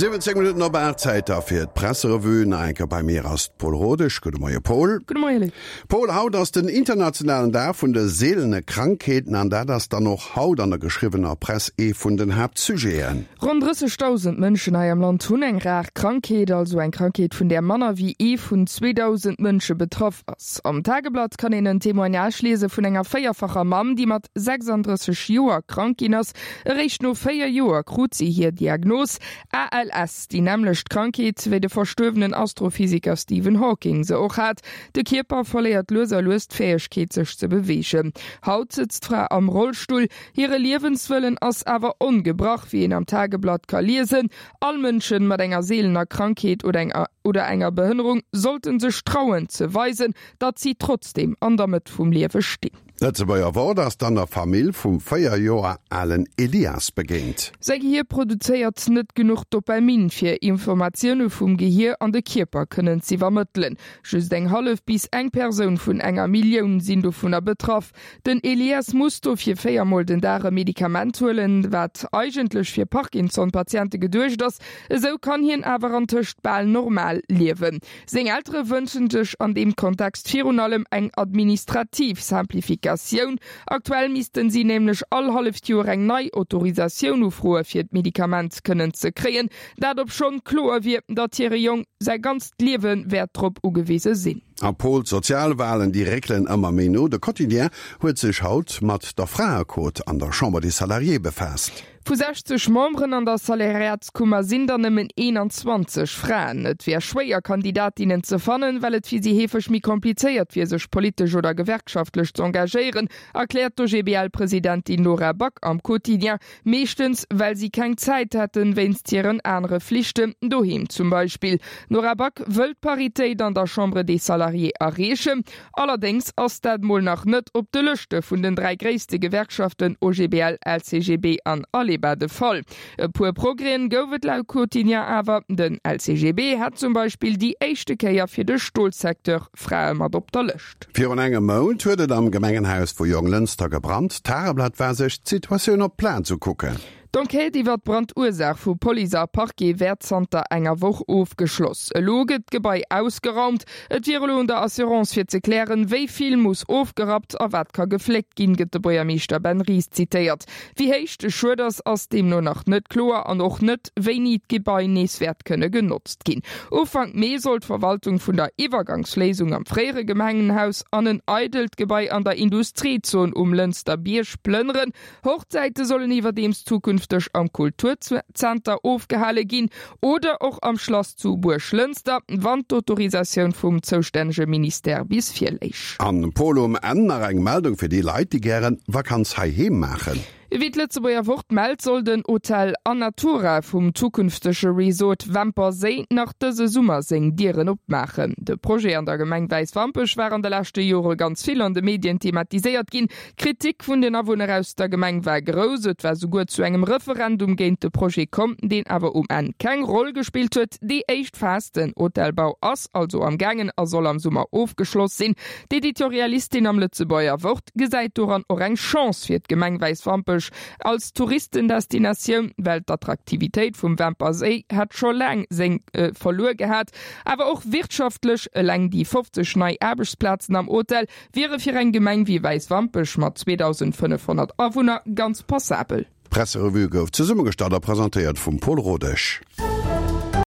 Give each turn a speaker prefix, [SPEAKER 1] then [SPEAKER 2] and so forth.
[SPEAKER 1] 17 Minutten op 8, Zäit da fir d'Presserevue. Nach eng Kéier bei mir ass d'Paul Rodesch. Gudde Moie Paul.
[SPEAKER 2] Gudde Moie Luc.
[SPEAKER 1] Paul, haut ass den internationalen Dag vun de seelene Krankheeten an dat ass dann och haut an der geschriwwener Press ee vun den Haaptsujeten.
[SPEAKER 2] Ronn 30.000 Mënschen hei am Land hunn eng rar Krankheet, also eng Krankheet vun där manner wéi ee vun 2.000 Mënsche betraff ass. Am Tageblatt kann een en Témoignage liese vun enger véierfacher Mamm, déi mat 36 Joer krank ginn ass. Eréischt no 4 Joer krut si hir Diagnos, ALS, déi nämmlecht Krankheet, wéi de verstuerwenen Astrophysiker Stephen Hawking se och hat. De Kierper verléiert lues a lues d'Fäegkeet, sech ze beweegen. Haut sëtzt d'Fra am Rollstull. Hire Liewenswëllen ass awer ongebrach, wéi een am Tageblatt ka liesen. All Mënschen mat enger seelener Krankheet oder enger Behënnerung sollten sech trauen ze weisen, datt si trotzdeem an der Mëtt vum Liewe stinn.
[SPEAKER 1] D'Lëtzebuerger Wort ass dann der Famill vum 4 Joer alen Elias begéint.
[SPEAKER 2] Säi Gehier produzéiert net genuch Dopamin, fir Informatioune vum Gehier an de Kierper kënnen z'iwwermëttelen. Just eng hallef bis eng Persoun vun enger Millioun sinn dovunner betraff. Den Elias muss dofir 4 mol den Dag e Medikament huelen, wat eigentlech fir Parkinson-Patiente geduecht ass. Esou kann hien awer antëscht bal normal liewen. Seng Eltere wënschen sech an deem Kontext virun allem eng administrativ Simplificatioun. Aktuell missten si nämlech all halleft Joer eng nei Autorisatioun ufroe fir d'Medikament kënnen ze kréien. Dat obschonn kloer wier, datt hire Jong säi ganzt Liewe wäert drop ugewise sinn.
[SPEAKER 1] A Pol, D'Sozialwalen, déi réckelen ëmmer méi no. De Quotidien huet sech haut mat der Fraequot an der Chambre des Salariés befaasst.
[SPEAKER 2] Vu 60 Memberen an der Salariatskummer sinn der nëmmen 21 Fraen. Et wär schwéier, Kandidatinnen ze fannen, well et fir si heefeg méi komplizéiert wier, sech politesch oder gewerkschaftlech z'engagéieren, erkläert d'OGBL-Presidentin Nora Back am Quotidien. Meeschtens, well si keng Zäit hätten, wéinst hiren anere Flichten, doheem zum Beispill. D'Nora Back wëll d'Paritéit an der Chambre des Salariés erreechen. Allerdéngs ass dat mol nach net op de Lëschte vun den 3 gréisste Gewerkschaften OGBL, LCGB an Aleba de Fall. E puer Progrèsen gouf et laut Quotidien awer. Den LCGB hat zum Beispill déi éischte Kéier fir de Stolsecteur Frae mat op der Lëscht.
[SPEAKER 1] Virun engem Mount huet et am Gemengenhaus vu Jonglënster gebrannt. D'Tageblatt war sech d'Situatioun op d'Plaz ukucken.
[SPEAKER 2] D'Enquête iwwer d'Brandursaach vu Police a Parquet wäert zanter enger Woch ofgeschloss. Elo gëtt d'Gebai ausgeraumt. Et wier elo un der Assurance fir ze klären, wéi vill muss ofgerappt a wat ka gefléckt ginn, gëtt de Buergermeeschter Ben Ries zitéiert. Wéi héich de Schued ass, ass deemno nach net kloer an och net, wéini d'Gebai nees wäert kënne genotzt ginn. Ufank Mee soll d'Verwaltung vun der Iwwergangsléisung am fréiere Gemengenhaus an en eidelt Gebai an der Industriezon um Lënster Bierg plënneren. Hochzäite sollen iwwerdeems zukünfteg am Kulturzenter ofgehale ginn oder och am Schlass zu Buerglënster, wann d'Autorisatioun vum zoustännege Ministère bis virléich.
[SPEAKER 1] An Pol, um Enn nach eng Meldung fir déi Leit, déi gären Vakanz heiheem maachen.
[SPEAKER 2] Wéi d'Lëtzebuerger Wort mellt, soll den Hotel Anatura vum zukünftege Resort Wämper Séi nach dëse Summer seng Dieren opmaachen. De Projet an der Gemeng Wäiswampech war an de leschte Jore ganz vill an de Medien thematiséiert ginn. D'Kritik vun den Awunner aus der Gemeng war grouss. Et war souguer zu engem Referendum géint de Projet komm, deen awer um Enn keng Roll gespillt huet. Déi éischt Phas, den Hotelbau, ass also am gaangen a soll am Summer ofgeschloss sinn. D'Editorialistin am Lëtzebuerger Wort gesäit doran och eng Chance fir d'Gemeng Wäiswampech als Touristendestinatioun, well d'Attraktivitéit vum Wämper Séi hätt scho laang seng verluer gehat. Awer och wirtschaftlech, eleng déi 50 nei Aarbechtsplazen am Hotel Wiere fir eng Gemeng wéi Wäiswampech mat 2.500 Awunner ganz passabel.
[SPEAKER 1] D'Presserevue gouf zesummegestallt a presentéiert vum Paul Rodesch.